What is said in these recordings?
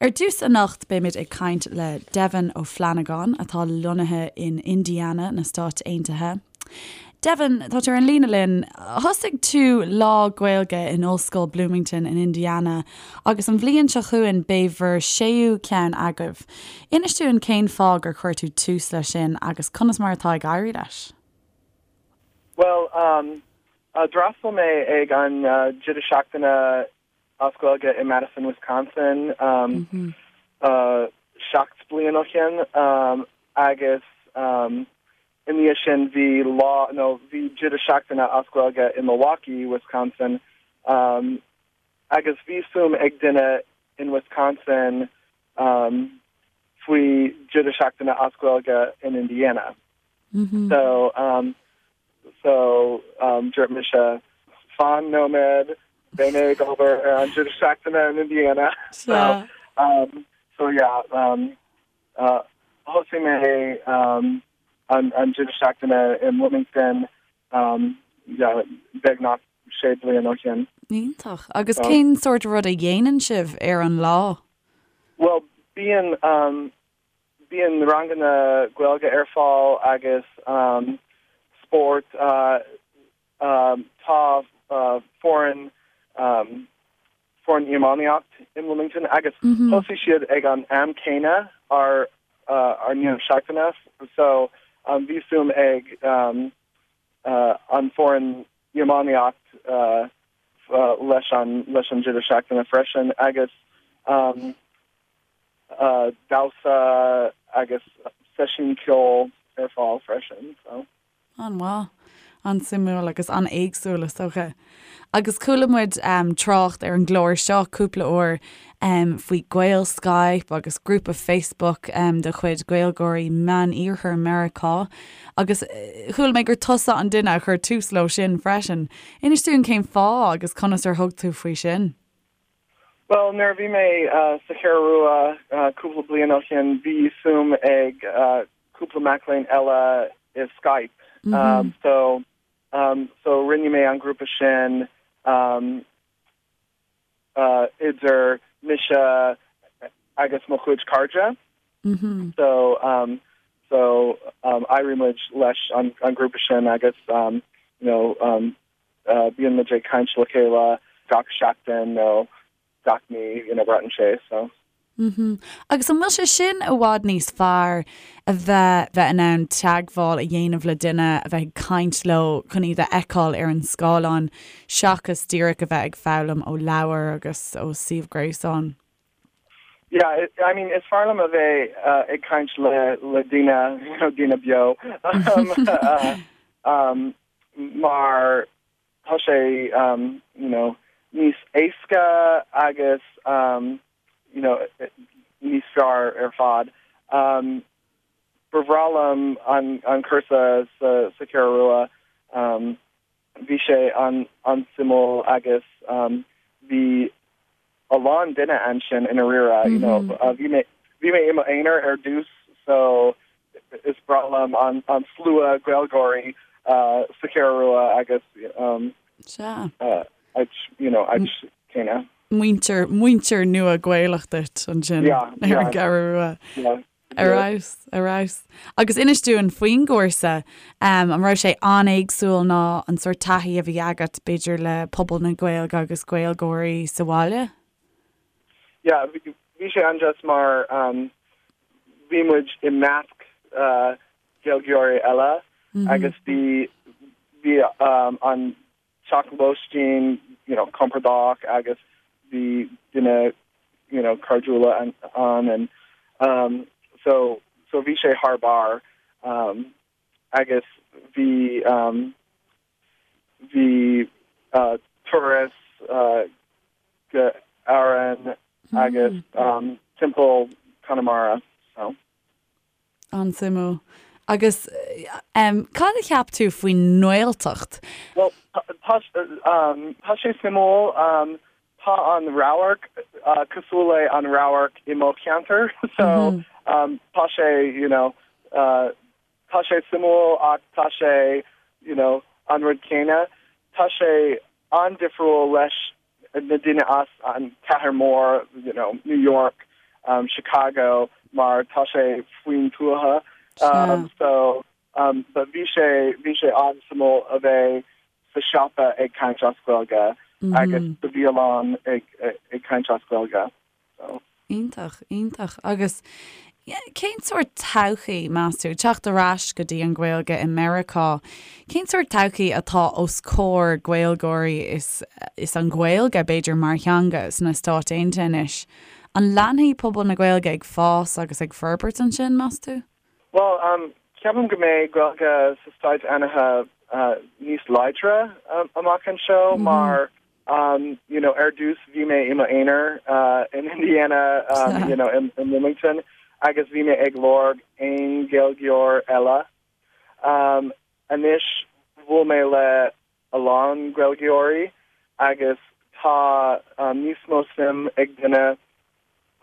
Ar dtús anocht beimid ag caint le Devin Ó Flannagáin atá lonnaithe in Indiana na Stáit Aontaithe. Devin, tá tú ar an líne linn. Thosaigh tú Lá Gaeilge in Ollscoil Bloomington in Indiana agus an bhliain seo chugainn beidh bhur séú ceann agaibh. Inis dúinn cén fáth gur chuir tú tús leis sin agus conas mar atá ag éirí leis? Bhuel, d'fhreastail mé ag an deireadh seachtaine as Gaeilge i Madison, Wisconsin 7 bliain ó shin agus i ndiaidh sin bhí lá nó bhí deireadh seachtaine as Gaeilge i Milwaukee, Wisconsin agus bhí suim ag duine in Wisconsin faoi deireadh seachtaine as Gaeilge in Indiana. So So, dúirt mise, fan nóiméad, beidh mé ag obair ar an deireadh seachtaine in Indiana. So, so yeah, thosaigh mé an deireadh seachtaine i mBloomington, yeah, beagnach sé bliain ó shin. Iontach. Agus cén sórt rud a dhéanann sibh ar an lá? Bhuel, bíonn Bíonn ranganna Gaeilge ar fáil agus spórt. Tá foireann foireann iománaíocht i mBloomington agus thosaigh siad ag an am céanna ár ár ndeireadh seachtaine so bhí suim ag an foireann iománaíocht leis an leis an deireadh seachtaine freisin agus damhsa agus seisiún ceoil ar fáil freisin. So. An-mhaith. An-suimiúil agus an-éagsúil is dócha. Agus chuala muid trácht ar an gclár seo cúpla uair faoi Gael Skype agus grúpa Facebook de chuid Gaeilgeoirí Meán-Iarthar Meiriceá agus chuala mé gur tusa an duine a chuir tús leo sin freisin. Inis dúinn cén fáth agus conas ar thug tú faoi sin? Bhuel, nuair a bhí mé sa Cheathrú Rua cúpla bliain ó shin, bhí suim ag cúpla mac léinn eile i Skype. So, so rinne mé an grúpa sin idir mise agus mo chuid cairde. So, so d'éirigh muid leis an grúpa sin agus, you know, Bíonn muid ag caint le chéile gach seachtain nó gach mí, you know, braitheann sé, so. Mhm. Agus an bhfuil sé sin i bhfad níos fearr a bheith bheith in ann teagmháil a dhéanamh le duine, a bheith ag caint leo chun iad a fheiceáil ar an scáileán seachas díreach a bheith ag foghlaim ó leabhar agus ó suíomh gréasáin? Yeah, I mean, is fearr liom a bheith ag caint le le daoine, you know, daoine beo. um, mar tá sé you know níos éasca agus you know níos fearr ar fad. Ba bhreá liom an an cúrsa sa sa Cheathrú Rua. Bhí sé an an-suimiúil agus bhí a lán duine ansin i ndáiríre, you know, bhí mé bhí mé i m'aonar ar dtús so is breá liom an an slua Gaeilgeoirí sa Cheathrú Rua agus um, Sea. áit, you know, áit céanna. Muintir, muintir nua Gaelach duit ansin Yeah, ar an yeah. gCeathrú Rua. Yeah. Ar fheabhas, ar fheabhas. Agus inis dúinn faoin gcúrsa, an raibh sé an-éagsúil ná an sórt taithí a bhí agat, b'fhéidir, le pobal na Gaeilge agus Gaeilgeoirí sa bhaile? Yeah, bhí sé an-deas mar bhí muid i measc Gaeilgeoirí eile agus bhí bhí an teach lóistín you know compordach agus bhí daoine you know cairdiúla ann and um so so bhí sé thar barr um agus bhí um bhí uh turas uh go Árainn agus um timpeall Conamara so. An-suimiúil. Agus cad a cheap tú faoin nGaeltacht? Bhuel, tá tá sé suimiúil. Tá an radharc cosúil le an radharc i mo cheantar so tá sé you know tá sé suimiúil ach tá sé you know an rud céanna. Tá sé an-difriúil leis na daoine as an cathair mór you know New York. Chicago mar tá sé faoin tuaithe so but bhí sé bhí sé an-suimiúil a bheith sa siopa ag caint as Gaeilge agus sa bhialann ag ag caint as Gaeilge so. Iontach, iontach. Agus cén sórt todhchaí, meas tú, teacht ar ais go dtí an Ghaeilge i Meiriceá, cén sórt todhchaí atá os comhair Gaeilgeoirí is is an Ghaeilge, b'fhéidir, mar theanga sna Stáit Aontaithe anois? An leanfaidh pobal na Gaeilge ag fás agus ag forbairt ansin, meas tú? Bhuel, ceapaim go mbeidh Gaeilge sa Stáit Aontaithe níos láidre amach anseo mar you know ar dtús bhí mé i m'aonar in Indiana you know in Bloomington agus bhí mé ag lorg aon Ghaeilgeoir eile. Anois bhuail mé le a lán Gaeilgeoirí agus tá níos mó suim ag duine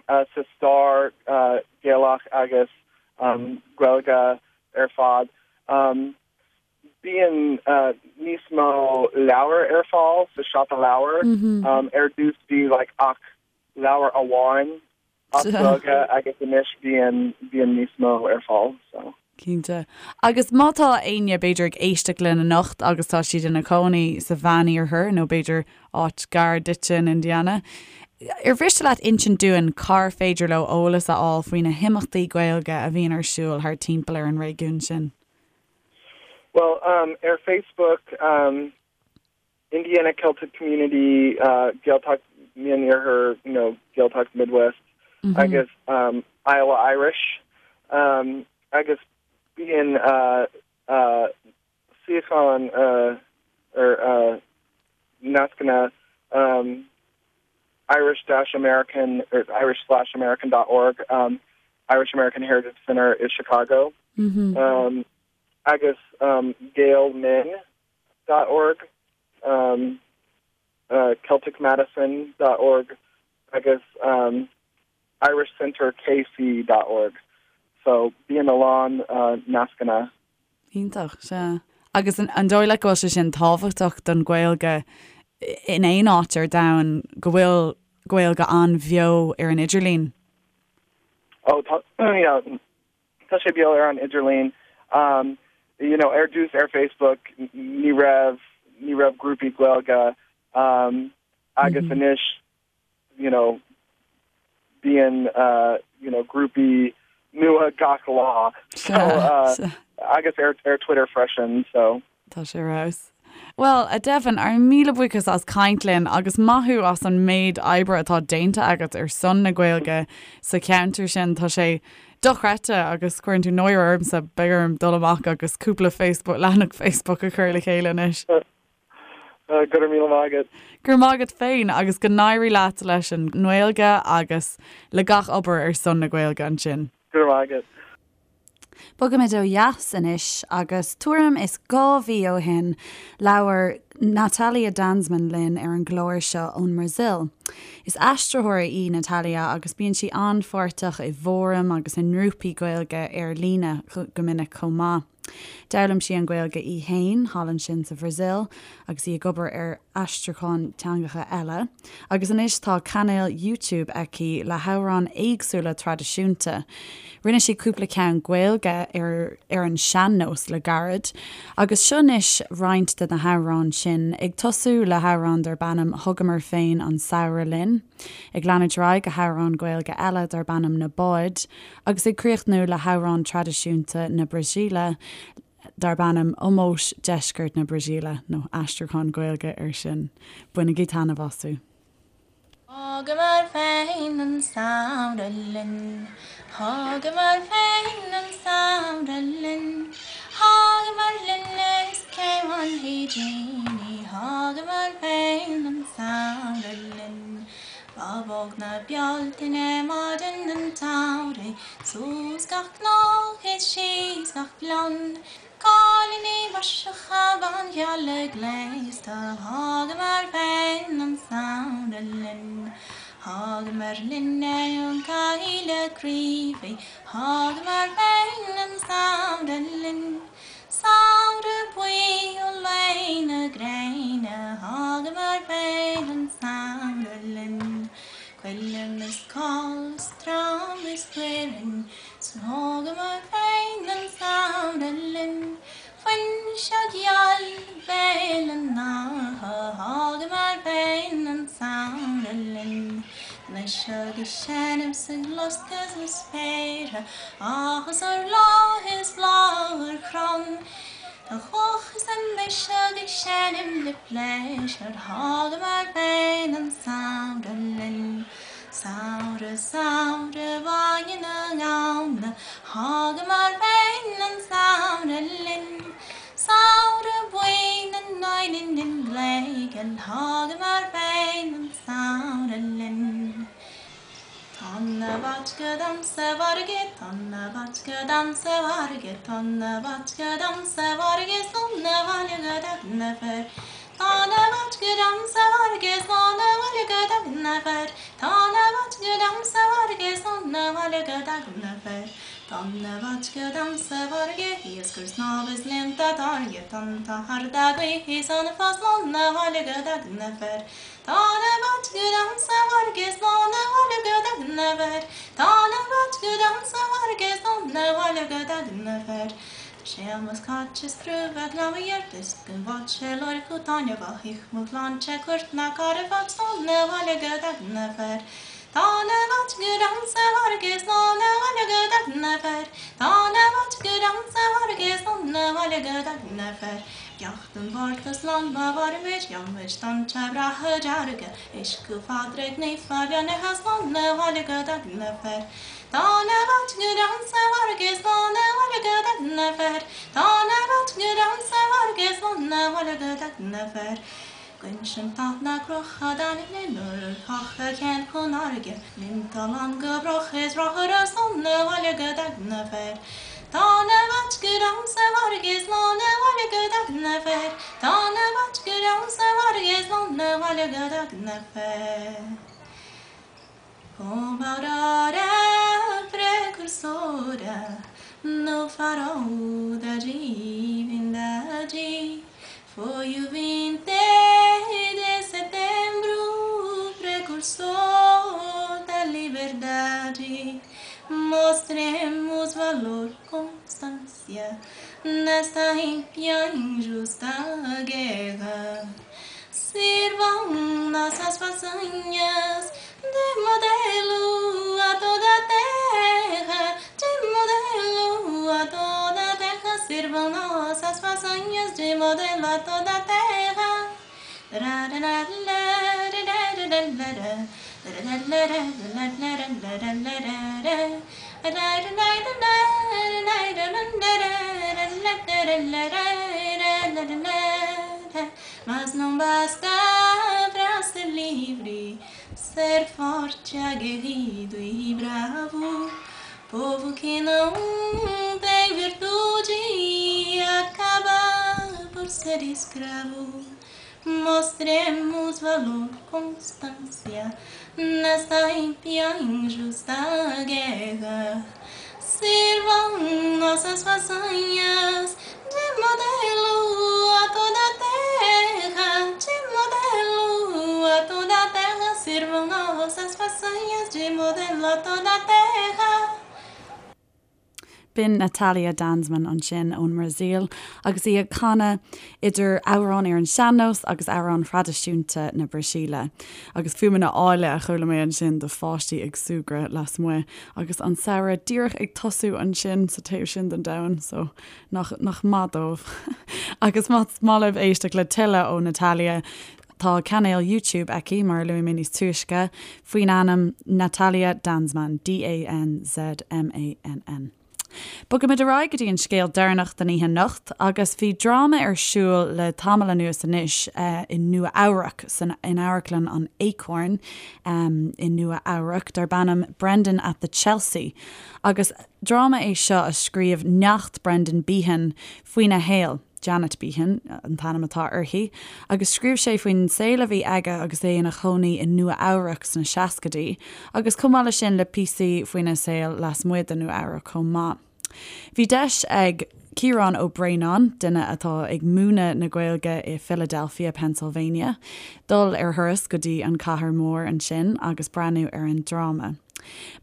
sa stair Gaelach agus Gaeilge ar fad. Bíonn níos mó leabhar ar fáil sa siopa leabhar. Ar dtús bhí like ach leabhar amháin as Gaeilge agus anois bíonn bíonn níos mó ar fáil so. Cinnte. Agus má tá éinne b'fhéidir ag éisteacht linn anocht agus tá siad ina cónaí sa Mheániarthar nó b'fhéidir áit gar duitse in Indiana, ar mhiste leat insint dúinn cár féidir leo eolas a fháil faoi na himeachtaí Gaeilge a bhíonn ar siúl thart timpeall ar an réigiún sin? Well, um, ar Facebook, um, Indiana Celtic Community, uh, Gaeltacht Meán-Iarthar, you know, Gaeltacht Midwest, mm -hmm. agus um, Iowa Irish, um, agus bíonn uh, uh, suíochán uh, ar uh, nascanna um, Irish-American or Irish/American.org, um, Irish American Heritage Center i Chicago, mm -hmm. um, agus um, GaelMinn dot org, um, uh, CelticMadison dot org agus um, IrishCenterKC dot org. So bíonn a lán uh, nascanna. Iontach, sea. Agus an, an dóigh leat go bhfuil sé sin tábhachtach don Ghaeilge in aon áit ar domhan go bhfuil Gaeilge an-bheo ar an idirlíon? Oh, tá, yeah, Tá sé beo ar an idirlíon. Um, you know, ar dtús ar Facebook ní raibh ní raibh grúpaí Gaeilge um, agus mm -hmm. anois you know, bíonn uh, you know, grúpaí nua gach lá so, uh, agus ar, ar Twitter freisin so. Tá sé ar fheabhas. Bhuel, a Devin, ár míle buíochas as caint linn agus maith thú as an méid oibre atá déanta agat ar son na Gaeilge sa cheantar sin. Tá sé dochreidte agus cuireann tú náire ormsa, beidh orm dul amach agus cúpla Facebook, leathanach Facebook a chur le chéile anois. Go raibh míle maith agat. Go raibh maith agat féin agus go n-éirí leat leis an nGaeilge agus le gach obair ar son na Gaeilge ansin. Go raibh maith agat. Bogaimid ó dheas anois agus tuairim is 2 mhí ó shin labhair Natalia Danzmann linn ar an gclár seo ón mBrasaíl. Is aistritheoir í Natalia agus bíonn sí an-pháirteach i bhfóraim agus i ngrúpaí Gaeilge ar líne go minic chomh maith. D'fhoghlaim sí an Ghaeilge í fhéin thall ansin sa Bhrasaíl agus í ag obair ar aistriúchán teangacha eile, agus anois tá cainéal YouTube aici le hamhráin éagsúla traidisiúnta. Rinne sí cúpla ceann Gaeilge ar ar an sean-nós le gairid, agus seo anois roinnt de na hamhráin sin, ag tosú le hamhrán darb ainm 'Thugamar Féin an Samhradh Linn', ag leanúint ar aghaidh go hamhrán Gaeilge eile darb ainm 'Na Báid', agus ag críochnú le hamhrán traidisiúnta na Brasaíle darb ainm Ómós Deisceart na Brasaíle, nó aistriúchán Gaeilge air sin. Bainigí taitneamh astu. Thugamar féin an samhradh linn, Thugamar féin an samhradh linn, Thugamar linn is cé bhainfidh dínn í, Thugamar féin an samhradh linn. Bábóg na Bealtaine maidin an tsamhraidh, Suas gach cnoc is síos gach gleann, Cailíní maiseacha bánfhionna gléasta, Thugamar féin an samhradh linn. Thugamar linn é ón gcoill craoibhí, Thugamar féin an samhradh linn. Samhradh buí ó luí na gréine, Thugamar féin an samhradh linn. Coilm is coll is. trom is glaorainn, 'S thógamar féin an samhradh linn. Fuinseog gheal Bhéal an Átha, thógamar féin an samhradh linn. Anois ag seinm 's ag loscadh sna spéartha, áthas ar bhláth is bláth ar chrann. Tá chuach is an mbiseach ag seinm le pléisiúr, thógamar féin an samhradh linn. Samhradh, samhradh bhaile na nGamhna, thógamar féin an samhradh linn. Samhradh buí na n-uaileann gléigeal, thógamar féin an samhradh linn. Tonna vodka dom sa bhfarraige, tonna vodka dom sa bhfarraige, tonna vodka dom sa bhfarraige, slán abhaile go dtagann na fir. Tonna vodka dom sa bhfarraige, slán abhaile go dtagann na fir. Tonna vodka dom sa bhfarraige, slán abhaile go dtagann na fir. Tonna vodka dom sa bhfarraige, iascaire snámha is líonta táirge, tonnta arda gaoithe is anfa, slán abhaile go dtagann na fir. Tonna vodka dom sa bhfarraige, slán abhaile go dtagann na fir. Tonna vodka dom sa bhfarraige, slán abhaile go dtagann na fir. Tá Séamus Cáit is crúba glamhaigh ar is go bhfád sé lorg chu taitneamhach ich mo shláinte cuairt ná carabhat slán abhaile go dtagann na fir. Tonna vodka dom sa bhfarraige, slán abhaile go dtagann na fir. Tonna vodka dom sa bhfarraige, slán abhaile go dtagann na fir. Beacht an Mhárta slán má mhairimid, gheobhaimid tonnta breátha dearga, Uisce Phádraig Naofa beannaithe slán abhaile go dtagann na fir. Tonna vodka dom sa bhfarraige, slán abhaile go dtagann na fir. Tonna vodka dom sa bhfarraige, slán abhaile go dtagann na fir. Guinseann tá na crocha d'ainmne nuair a chacha ceann chun fharraige, Líonta lán go bruth is rothaire slán abhaile go dtagann na fir. Tonna vodka dom sa bhfarraige slán abhaile go dtagann na fir. Tonna vodka dom sa bhfarraige slán abhaile go dtagann na fir. Como a aurora precursora no farol da divindade Foi o 20 de setembro precursor da liberdade Mostremos valor, constância nesta ímpia injusta guerra Sirvam nossas façanhas de modelo a toda a terra, de modelo a toda a terra. Sirvam nossas façanhas de modelo a toda a terra. Mas não basta pra ser livre, ser forte, aguerrido e bravo. Povo que não tem virtude acaba por ser escravo. Mostremos valor, constância nesta ímpia injusta guerra. Sirvam nossas façanhas de modelo a toda a terra, de modelo a toda a terra. Sirvam nossas façanhas de modelo a toda a terra. B'in Natalia Danzmann ansin ón mBrasaíl agus í ag canadh idir amhráin ar an sean-nós agus amhráin thraidisiúnta na Brasaíle. Agus fuaimeanna áille a chuala mé ansin de pháistí ag súgradh lasmuigh agus an samhradh díreach ag tosú ansin sa taobh sin den domhan, so nach nach maith dóibh. Agus más maith libh éisteacht le tuilleadh ó Natalia, tá cainéal YouTube aici, mar a luaigh mé níos túisce, faoin ainm Natalia Danzmann, D-A-N-Z-M-A-N-N. Bogaimid ar aghaidh go dtí an scéal deireanach den oíche anocht agus bhí dráma ar siúl le tamall anuas anois i Nua Eabhrac, san in Amharclann an Acorn i Nua Eabhrac, darb ainm Brendan at the Chelsea agus dráma é seo a scríobh neacht Brendan Behan faoina shaol. Janet Behan an t-ainm atá uirthi, agus scríobh sé faoin saol a bhí aige agus é ina chónaí i Nua Eabhrac sna seascaidí, agus chomh maith leis sin le píosaí faoina saol lasmuigh de Nua Eabhrac chomh maith. Bhí deis ag Ciarán Ó Braonáin, duine atá ag múineadh na Gaeilge i Philadelphia, Pennsylvania, dul ar thuras go dtí an cathair mhór ansin agus breathnú ar an dráma.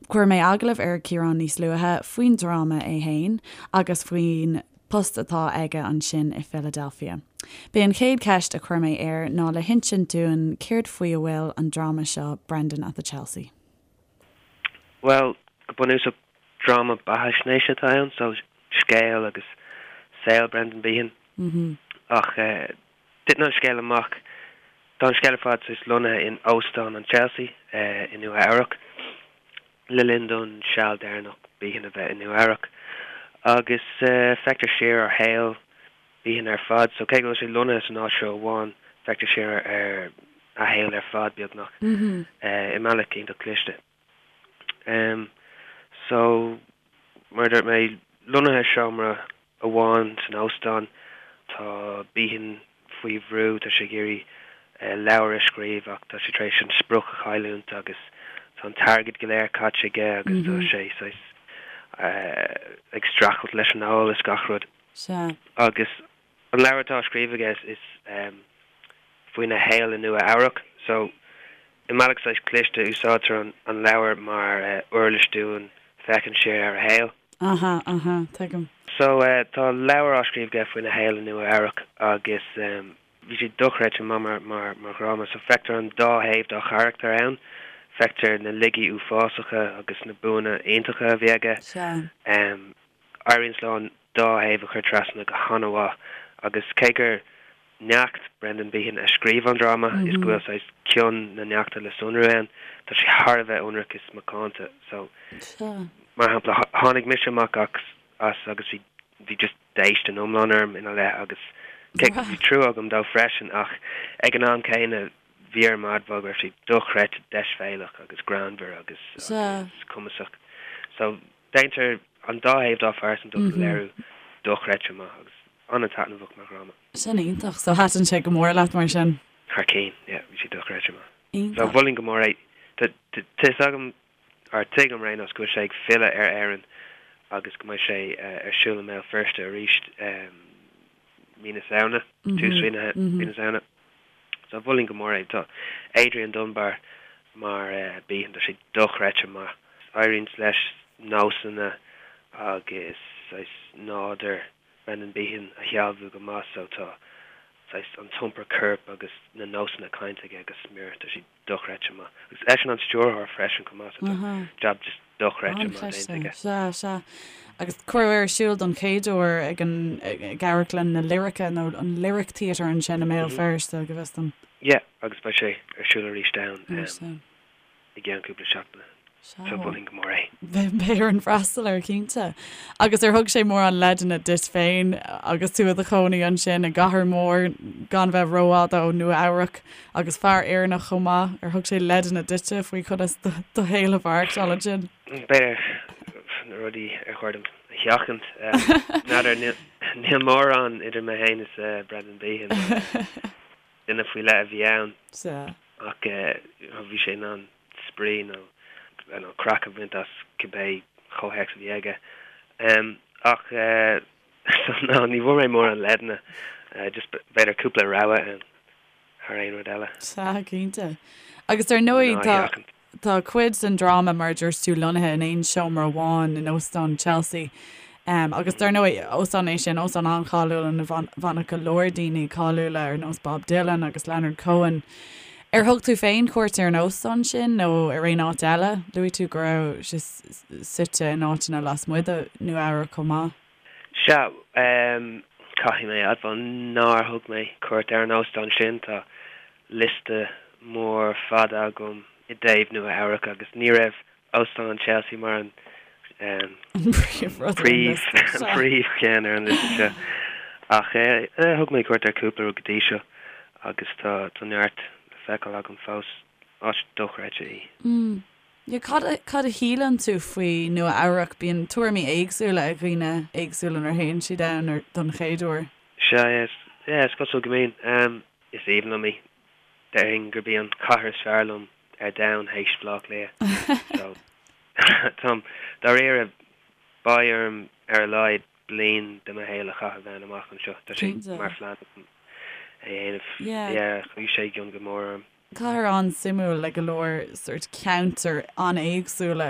Chuir mé agallamh ar Ciarán níos luaithe faoin dráma é fhéin agus faoin post atá aige ansin i Philadelphia. B'é an chéad cheist a chuir mé air ná le hinsint dúinn céard faoi a bhfuil an dráma seo Brendan at the Chelsea. Bhuel, go bunúsach dráma beathaisnéise atá ann, so scéal agus saol Brendan Behan. Ach titeann an scéal amach, tá an scéal ar fad saghas lonnaithe in Óstán an Chelsea i Nua Eabhrac le linn don seal deireanach Behan a bheith i Nua Eabhrac. Agus feictear siar ar shaol Behan ar fad, so cé go bhfuil sé lonnaithe san áit seo amháin, feictear siar ar a shaol ar fad, beagnach, i mbealach iontach cliste. So, mar a dúirt mé, lonnaithe i seomra amháin san óstán, tá Behan faoi bhrú, tá sé ag iarraidh leabhar a scríobh ach tá sé tar éis an sprioc a chailliúint agus tá an t-airgead go léir caite aige agus tá sé saghas ag streachailt leis an ól is gach rud. Sea. Agus an leabhar atá á scríobh aige is faoina shaol i Nua Eabhrac. So, i mbealach saghas cliste, úsáidtear an leabhar mar uirlis dúinn féachaint siar ar a shaol. Aha, aha, tuigim. So, tá leabhar á scríobh aige faoina shaol i Nua Eabhrac agus bhí sé dochreidte maith mar, mar, mar dhráma. So, feictear an dá thaobh dá charachtar ann. Feictear na laigí uafásacha agus na buanna iontacha a bhí aige. Sea. Éiríonn leo an dá thaobh a chur trasna go han-mhaith agus cé gur neacht Brendan Behan a scríobh an dráma is go bhfuil saghas cion na neachta le sonrú ann, tá sé thar a bheith ionraic is macánta. So, mar shampla, tháinig mise amach as agus bhí bhí just déistin iomlán orm ina leith agus cé go bhí trua agam dó freisin ach ag an am céanna bhí orm a admháil go raibh sé dochreidte deisbhéalach agus greannmhar agus agus cumasach. So, Déantar an dá thaobh dá phearsantacht a léiriú dochreidte maith agus an-taitneamhach mar dhráma. Sin iontach. So thaitin sé go mór leat mar sin? Thar cinn, yeah, bhí sé dochreidte maith. Iontach. So mholfainn go mór é. Tá fhios agam, or tuigim ar aon nós, go bhfuil sé ag filleadh ar Éirinn agus go mbeidh sé ar siúl i mBéal Feirste arís mí na Samhna, tús mhí na Samhna. So mholfainn go mór é. Tá Adrian Dunbar mar Behan, tá sé dochreidte maith. Éiríonn leis nósanna agus saghas nádúr Brendan Behan a shealbhú go maith so tá saghas an t-iompar coirp agus na nósanna cainte aige go smior. Tá sé dochreidte maith. Agus eisean an stiúrthóir freisin chomh maith so tá jab just dochreidte maith déanta aige. Sea, sea. Agus cuireadh ar siúl don chéad uair ag an ag Amharclann na Lirice nó an Lyric Theatre ansin i mBéal Feirste, go bhfios dom. Yeah, agus beidh sé ar siúl arís ann i gceann cúpla seachtaine. Sea. So mholfainn go mór é. Beidh orainn freastal air, cinnte. Agus ar thug sé mórán leideanna duit féin agus tú i do chónaí ansin i gcathair mhór gan bheith rófhada ó Nua Eabhrac agus fear Éireannach chomh maith, ar thug sé leideanna duitse faoi conas do shaol a mhaireachtáil ansin? B'fhéidir na rudaí ar chóir dom a sheachaint. N'fheadar, níl mórán idir mé féin is Brendan Behan. Duine faoi leith a bhí ann. Sea. Ach bhí sé in ann spraoi nó nó craic a bhaint as cibé comhthéacs a bhí aige. Ach so no, ní bhfuair mé mórán leideanna, just b'fhéidir cúpla rabhadh ann thar aon rud eile. Sea, cinnte. Agus ar ndóigh tá tá cuid den dráma, mar a dúirt tú, lonnaithe in aon seomra amháin in Óstán Chelsea. Agus dar ndóigh, óstán é sin, óstán an-cháiliúil ina bhfanadh go leor daoine cáiliúla ar nós Bob Dylan agus Leonard Cohen. Ar thug tú féin cuairt ar an óstán sin nó ar aon áit eile? Luaigh tú go raibh sé suite in áiteanna lasmuigh de Nua Eabhrac chomh maith. Sea, caithfidh mé a admháil nár thug mé cuairt ar an óstán sin. Tá liosta mór fada agam i dtaobh Nua Eabhrac agus ní raibh Óstán an Chelsea mar an príomhcheann ar an liosta seo. Ach thug mé cuairt ar cúpla rud go dtí seo agus tá neart le feiceáil agam fós. Áit dochreidte í. Cad a shíleann tú faoi Nua Eabhrac? Bíonn tuairimí éagsúla ag dhaoine éagsúla nuair a théann siad ann don chéad uair. Sea, is cosúil go mbíonn. Is aoibhinn liom í. Déarfainn gurb í an chathair is fearr liom ar domhan théis Bhaile Átha Cliath. So, táim dáiríre, beidh orm ar a laghad bliain de mo shaol a chaitheamh ann amach anseo. Tá sé mar phlean agam é a dhéanamh. Yeah. Chuaigh sé i gcion go mór orm. Cathair an-suimiúil le go leor sórt ceantair an-éagsúla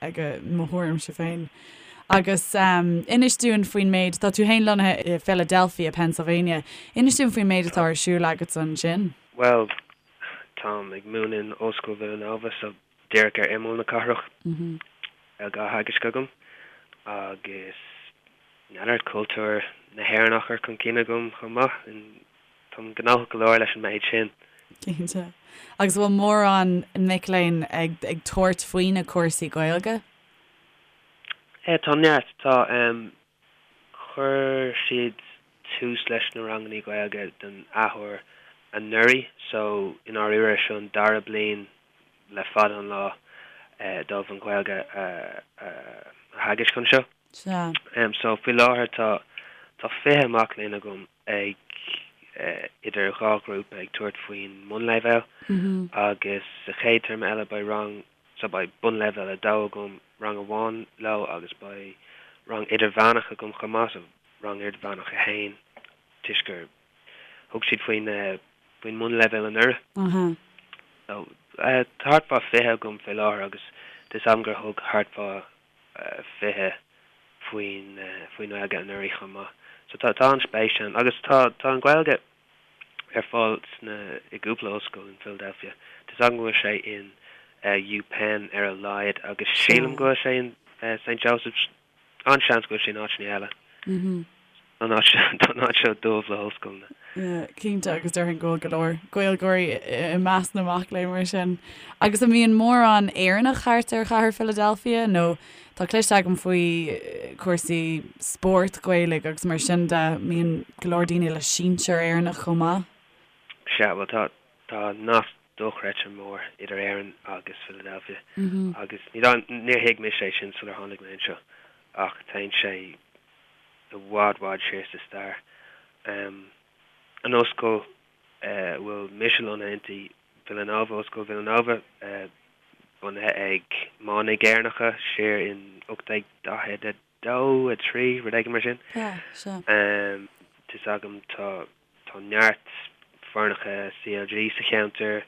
aige mo thuairimse féin. Agus inis dúinn faoin méid, tá tú féin lonnaithe i Philadelphia, Pennsylvania, inis dúinn faoin méid atá ar siúl agatsa ansin. Bhuel, táim ag múineadh in Ollscoil Villanova so díreach ar imeall na cathrach. Gaeilge á theagasc agam agus n'fheadar, cultúr na hÉireann á chur chun cinn agam chomh maith. Táim gnóthach go leor leis an méid sin. Cinnte. Agus an bhfuil mórán mic léinn ag ag tabhairt faoi na cúrsaí Gaeilge? Eh, tá neart. Tá. Chuir siad tús leis na rangannaí Gaeilge den athuair anuraidh so i ndáiríre seo an dara bliain le fada an lá dóibh an Ghaeilge a theagasc anseo. Sea. So faoi láthair tá tá 20 mac léinn agam ag idir dhá ghrúpa ag tabhairt faoin mbunleibhéal agus sa chéad téarma eile beidh rang so beidh bunleibhéal 2 agam, rang amháin leo agus beidh rang idirmheánach agam chomh maith, so rang idirmheánach 1 toisc gur thug siad faoin faoin mbunleibhéal anuraidh. So tá thart fá 20 agam fé láthair agus tá 'fhios agam gur thug thart fá 20 faoin faoin nGaeilge anuraidh chomh maith. So tá tá an-spéis ann agus tá tá an Ghaeilge ar fáil sna i gcúpla ollscoil in Philadelphia. Tá 'fhios agam go bhfuil sé in UPenn ar a laghad agus sílim go bhfuil sé in St Joseph's. An-seans go bhfuil sé in áiteanna eile. Tá an áit seo tá an áit seo dubh le hollscoileanna. Yeah, cinnte agus déarfainn go bhfuil go leor Gaeilgeoirí i measc na mac léinn mar sin. Agus an mbíonn mórán Éireannach thart ar chathair Philadelphia nó tá cloiste agam faoi cúrsaí spóirt Ghaelaigh agus mar sin de, mbíonn go leor daoine le sinsear Éireannach chomh maith? Sea, bhuel tá tá nasc dochreidte mór idir Éirinn agus Philadelphia agus ní níor thuig mise é sin sular tháinig mé anseo ach téann sé i bhfad bhfad siar sa stair. An ollscoil a bhfuil mise lonnaithe inti, Villanova, Ollscoil Villanova, bunaithe ag manaigh Éireannacha siar in 1842, 3, rud éigin mar sin. Sea. Tá 'fhios agam tá tá neart foirneacha CLG sa cheantar.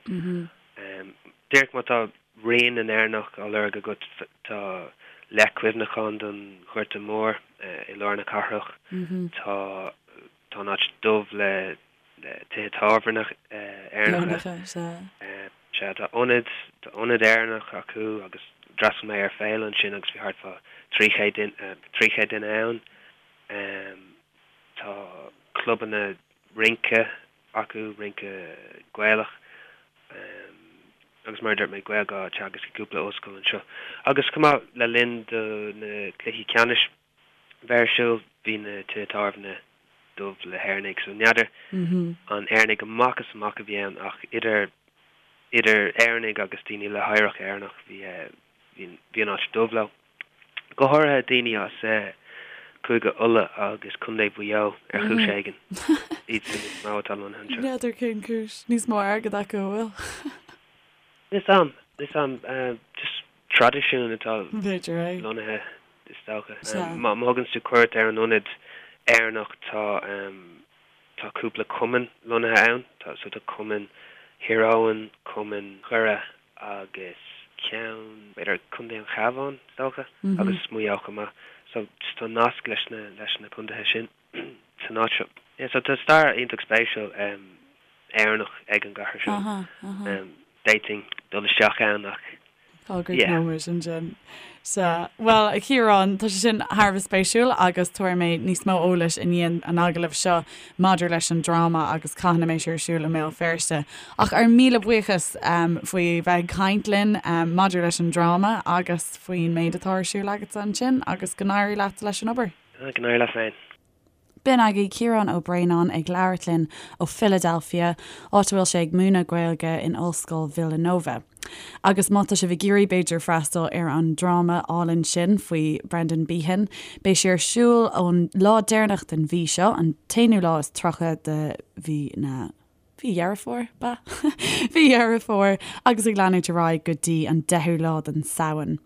Díreach má tá rian na nÉireannach á lorg agat tá leac cuimhneacháin don Ghorta Mór i lár na cathrach. Tá tá an áit dubh le tithe tábhairne Éireannacha. Sea, tá ionad, tá ionad Éireannach acu agus d'fhreastail mé ar féile ansin agus bhí thart fá 300 duine, 300 duine ann. Tá clubanna rince acu, rince Gaelach, agus mar a dúirt mé, Gaeilge á teagasc i gcúpla ollscoil anseo. Agus chomh maith, le linn do na cluichí ceannais bheith ar siúl, bhí na tithe tábhairne dubh le hÉireannaigh, so n'fheadar an Éireannaigh amach is amach a bhí ann ach idir idir Éireannaigh agus daoine le hoidhreacht Éireannach bhí bhí an áit dubh leo. Go háirithe daoine as Cúige Uladh agus Contae Mhaigh Eo ar chúis éigin. Iadsan is mó atá lonnaithe anseo. N'fheadar cén chúis. Níos mó airgead acu, an bhfuil? Níl 'fhios a'm. Níl 'fhios a'm. Just traidisiún atá B'fhéidir é. lonnaithe is dócha. Má thugann tú cuairt ar an ionad Éireannach tá tá cúpla cumann lonnaithe ann. Tá so tá cumann Thír Eoghain, cumann Dhoire agus ceann, b'fhéidir Contae an Chabháin, is dócha, agus Maigh Eo chomh maith. So just tá nasc leis na, leis na contaetha sin san áit seo. Yeah, so tá stair iontach spéisiúil Éireannach ag an gcathair seo. D'fhéadfainn dul isteach ann ach Tá go yeah. nóiméad ansin. Sea, bhuel, a Chiaráin, tá sé sin thar a bheith spéisiúil agus tabharfaidh mé níos mó eolais i ndiaidh an agallaimh seo maidir leis an dráma agus cathain a mbeidh sé ar siúl i mBéal Feirste. Ach ár míle buíochas faoi bheith ag caint linn maidir leis an dráma agus faoin méid atá ar siúl agatsa ansin agus go n-éirí leat leis an obair. Go n-éirí leat féin. B'in agaibh Ciarán Ó Braonáin ag labhairt linn ó Philadelphia, áit a bhfuil sé ag múineadh Gaeilge in Ollscoil Villanova. Agus má tá sibh ag iarraidh, b'fhéidir, freastal ar an dráma álainn sin faoi Brendan Behan, beidh sé ar siúl ón lá deireanach den mhí seo, an t-aonú lá is 30 de mhí na. Mhí Dheireadh Fómhair, b'ea? Mhí Dheireadh Fómhair, agus ag leanúint ar aghaidh go dtí an 10ú lá den Samhain.